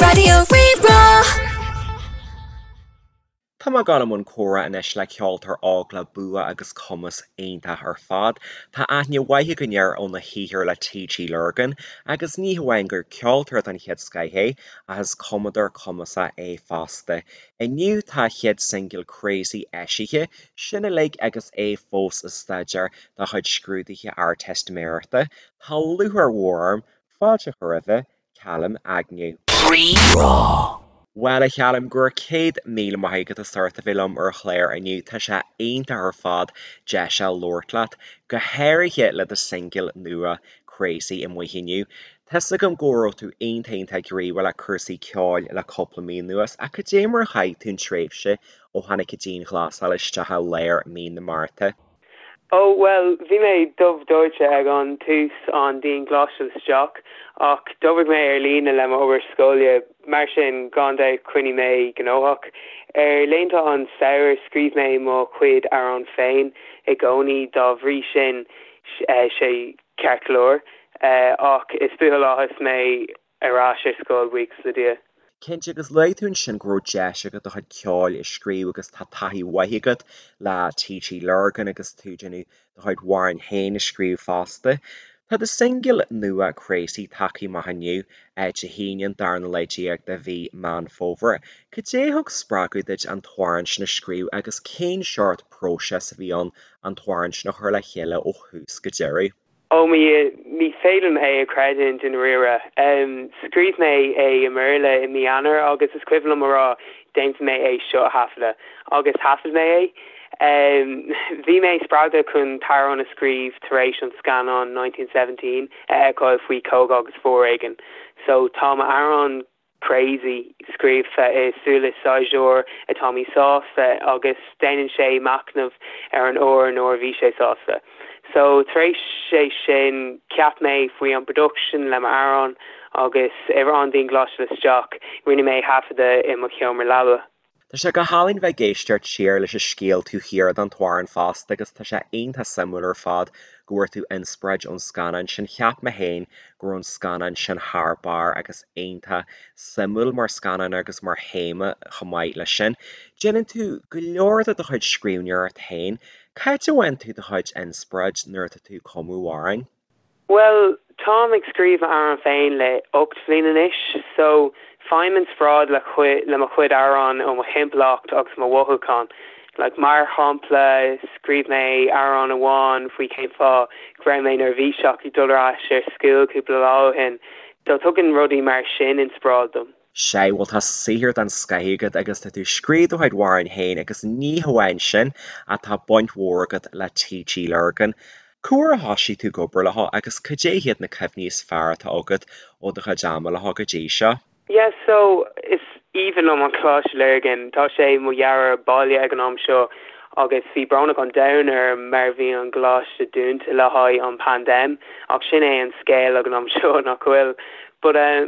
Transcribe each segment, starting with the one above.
Raidió Rí-Rá. Tá mé ag dul i mbun comhrá anois le ceoltóir óg le bua agus cumas iontach ar fad. Tá aithne mhaith againn air óna shaothar le TG Lurgan agus ní hamháin gur ceoltóir den chéad scoith é ach is cumadóir cumasach é fosta. Inniu tá a chéad singil Crazy eisithe, sin uilig agus é fós ag staidéar dá chuid scrúduithe Ardteistiméireachta. Tá lúcháir mhór orm fáilte a chur roimhe, Calum Agnew. Rí-Rá. Bhuel, a Chaluim, go raibh 100,000 maith agat as ucht a bheith liom ar an chlár inniu. Tá sé iontach ar fad deis a labhairt leat, go háirithe le do singil nua Crazy amuigh inniu. Tá's agam go raibh tú iontach iontach gníomhach le cúrsaí ceoil le cúpla mí anuas, ach cad é mar a chaith tú an tréimhse ó tháinig an dianghlasáil isteach i lár mí na Márta? Ó, bhuel, bhí mé dubh dóite ag an tús an dianghlasáil isteach, ach d'oibrigh mé ar líne le m'obair scoile, mar sin, gan dabht choinnigh mé gnóthach. Ar laethanta an samhradh, scríobh mé mo chuid amhrán féin i gcónaí, dá bhrí sin, sé ceart go leor, ach is buachaill áthas mé ar ais ar scoil, buíochas le Dia. Cinnte, agus luaigh tú ansin go raibh deis agat do chuid ceoil a scríobh agus tá taithí mhaith agat le TG Lurgan agus tú ag déanamh do chuid amhráin féin a scríobh fosta. Tá do singil nua Crazy tagtha amach inniu, Dé hAoine an darna lá déag de mhí Meán Fómhair. Cad é a thug spreagadh duit an t-amhrán sin a scríobh agus cén seort próiseas a bhí ann an t-amhrán sin a chur le chéile ó thús go deireadh? Ó mo Dhia, ní féidir liom é a chreidiúint i ndáiríre. Scríobh mé é i mBéarla i mí Eanáir agus is cuimhin liom a rá déanfaidh mé é seo a thaifeadadh. Agus thaifead mé é. Bhí mé spreagtha chun t-amhrán a scríobh tar éis an scannán 1917 a fheiceáil faoi cogadh agus foréigean. So tá m'amhrán Crazy, scríofa i súile saighdiúir atá míshásta agus déanann sé machnamh ar an uair nuair a bhí sé sásta. So, tar éis sé sin, cheap mé faoi an production le m'amhrán agus ar an dianghlasáil isteach, rinne mé thaifeadadh i mo sheomra leaba. Tá sé go hálainn bheith ag éisteacht siar leis an scéal taobh thiar den t-amhrán fosta agus tá sé iontach suimiúil ar fad go bhfuair tú inspioráid ón scannán sin. Cheap mé féin go raibh an scannán sin thar barr agus iontach suimiúil mar scannán agus mar théama chomh maith leis sin. Déanann tú go leor de do chuid scríbhneoireacht féin. Cá háit a bhfaigheann tú do chuid inspioráid nuair atá tú ag cumadh amhráin? Bhuel, táim ag scríobh m'amhrán féin le 8 bhliain anois, so faighim inspioráid le le mo chuid amhrán ó mo thimpeallacht agus mo mhothúcháin. Like, mar shampla, scríobh mé amhrán amháin faoi cén fáth go raibh mé neirbhíseach ag dul ar ais ar school cúpla lá ó shin. So tugann rudaí mar sin inspioráid dom. Sea, bhuel tá saothar den scoith agat agus tá tú ag scríobh do chuid amhráin féin agus ní hamháin sin ach tá baint mhór agat le TG Lurgan. Cá huair a thosaigh tú ag obair leo agus cad é hiad na cuimhní is fearr atá agat ó do chuid ama leo go dtí seo? Yeah so is aoibhinn liom an Coláiste Lurgan, tá sé mo dhara baile ag an am seo agus bhí brónach an domhain orm mar bhí an gcoláiste dúnta le haghaidh an paindéim ach sin é an scéal ag an am seo nach bhfuil? But eh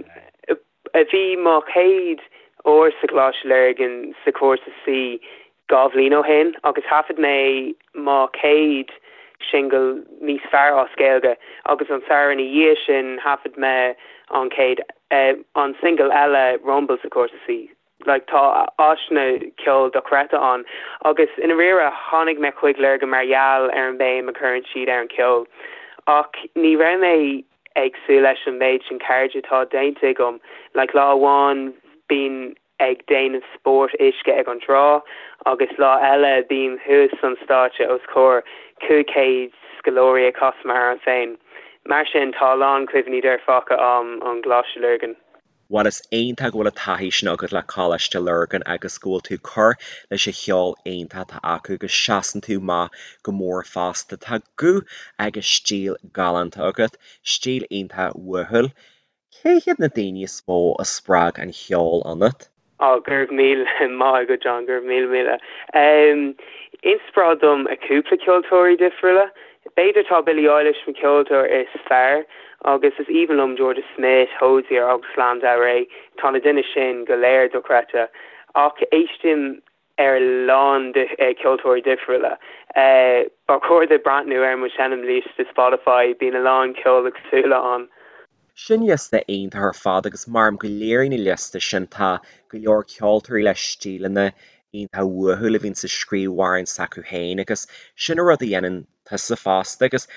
Bhí mo chéad uair sa Choláiste Lurgan sa chúrsa C 2 bhliain ó shin agus thaifead mé mo chéad singil níos fearr as Gaeilge agus an samhradh ina dhiaidh sin thaifead mé an chéad an singil eile Rumble sa chúrsa C. Like tá áiseanna ceoil dochreidte ann agus i ndáiríre tháinig mé chuig Lurgan mar gheall ar an béim a chuireann siad ar an ceol ach ní raibh mé ag súil leis an méid sin cairde atá déanta agam. Like lá amháin bím ag déanamh spórt uisce ag an trá agus lá eile bím thuas an stáitse os comhair 500 scoláirí ag casadh m'amhrán féin. Mar sin tá a lán cuimhní dearfacha a'm ón gColáiste Lurgan. Bhuel is iontach go bhfuil an taithí sin agat le Coláiste Lurgan agus go bhfuil tú ag cur leis an cheol iontach atá acu agus seasann tú amach go mór fosta. Tá guth agus stíl galánta agat, stíl iontach uathúil. Cé hiad na daoine is mó a spreag an cheol ionat? Á, go raibh míle maith agat John, go raibh míle míle. Inspioráid dom a cúpla ceoltóirí difriúla. B'fhéidir tá Billie Eilish mo ceoltóir is fearr agus is aoibhinn liom Jorja Smith, Hozier agus Lana Del Rey. Tá na duine sin go léir dochreidte. Ach éistim ar a lán ceoltóirí difriúla. Ba chóir duit breathnú ar mo seinmliosta Spotify, bíonn a lán ceol éagsúla ann. Sin liosta iontach ar fad agus mar go léiríonn an liosta sin tá go leor ceoltóirí le stíleanna iontach uathúil a bhíonn ag scríobh amhráin s'acu féin agus sin an rud a dhéanann tusa fosta agus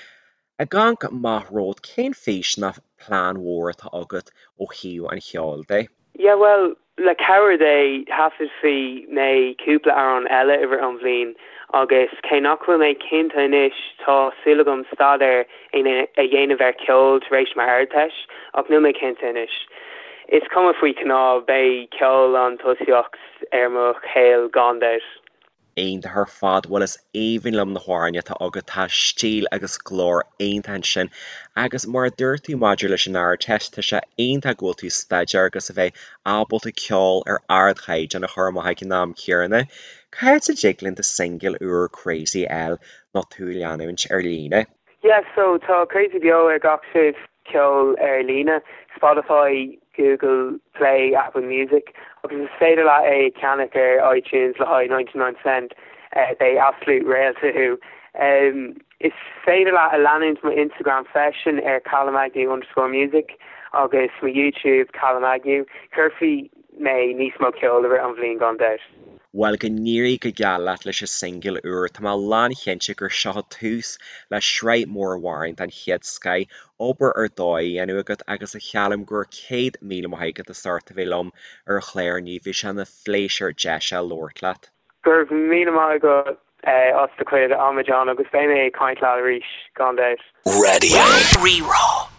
ag amharc amach romhat cén fís nó plean mhór atá agat ó thaobh an cheoil de? Yeah bhuel, le cabhair Dé, thaifeadfaidh mé cúpla amhrán eile i rith an bhliain agus cé nach bhfuil mé cinnte anois, tá súil agam staidéar a dhéanamh ar ceol tar éis m'Ardteist, ach níl mé cinnte anois. Is cuma faoi cnámh, beidh ceol an tosaíocht ar mo shaol gan dabht. Iontach ar fad, bhuel is aoibhinn liom na hamhráin atá agat, tá stíl agus glór iontach ansin agus mar a dúirt tú maidir leis an Ardteist, tá sé iontach go bhfuil tú ag staidéar agus a bheith ábalta ceol ar ardchaighdeán a chur amach ag an am céanna. Cá háit a dtig linn do singil úr Crazy a fháil nó tú a leanúint ar líne? Yeah so tá Crazy beo ar gach suíomh ceoil ar líne, Spotify, Google Play, Apple Music, agus is féidir leat é a cheannach ar iTunes le haghaidh 99 cent, beidh absolute réalta thú. Is féidir leat a leanúint mo Instagram freisin ar callumagnew underscore music agus mo YouTube Callum Agnew. Cuirfidh mé níos mó ceoil i rith an bhliain gan dabht. Bhuel, go n-éirí go geal leat leis an singil úr. Tá mé lánchinnte gur seo tús le sraith mór amhrán den chéad scoith, obair ar dóigh á dhéanamh agat agus a Chaluim go raibh 100,000 maith agat as ucht a bheith liom ar an chlár inniu. Bhí sé ina phléisiúr deis a labhairt leat. Go raibh míle maith agat as do chuid ama John agus beidh mé ag caint leat arís gan dabht. Radio Rí-Rá.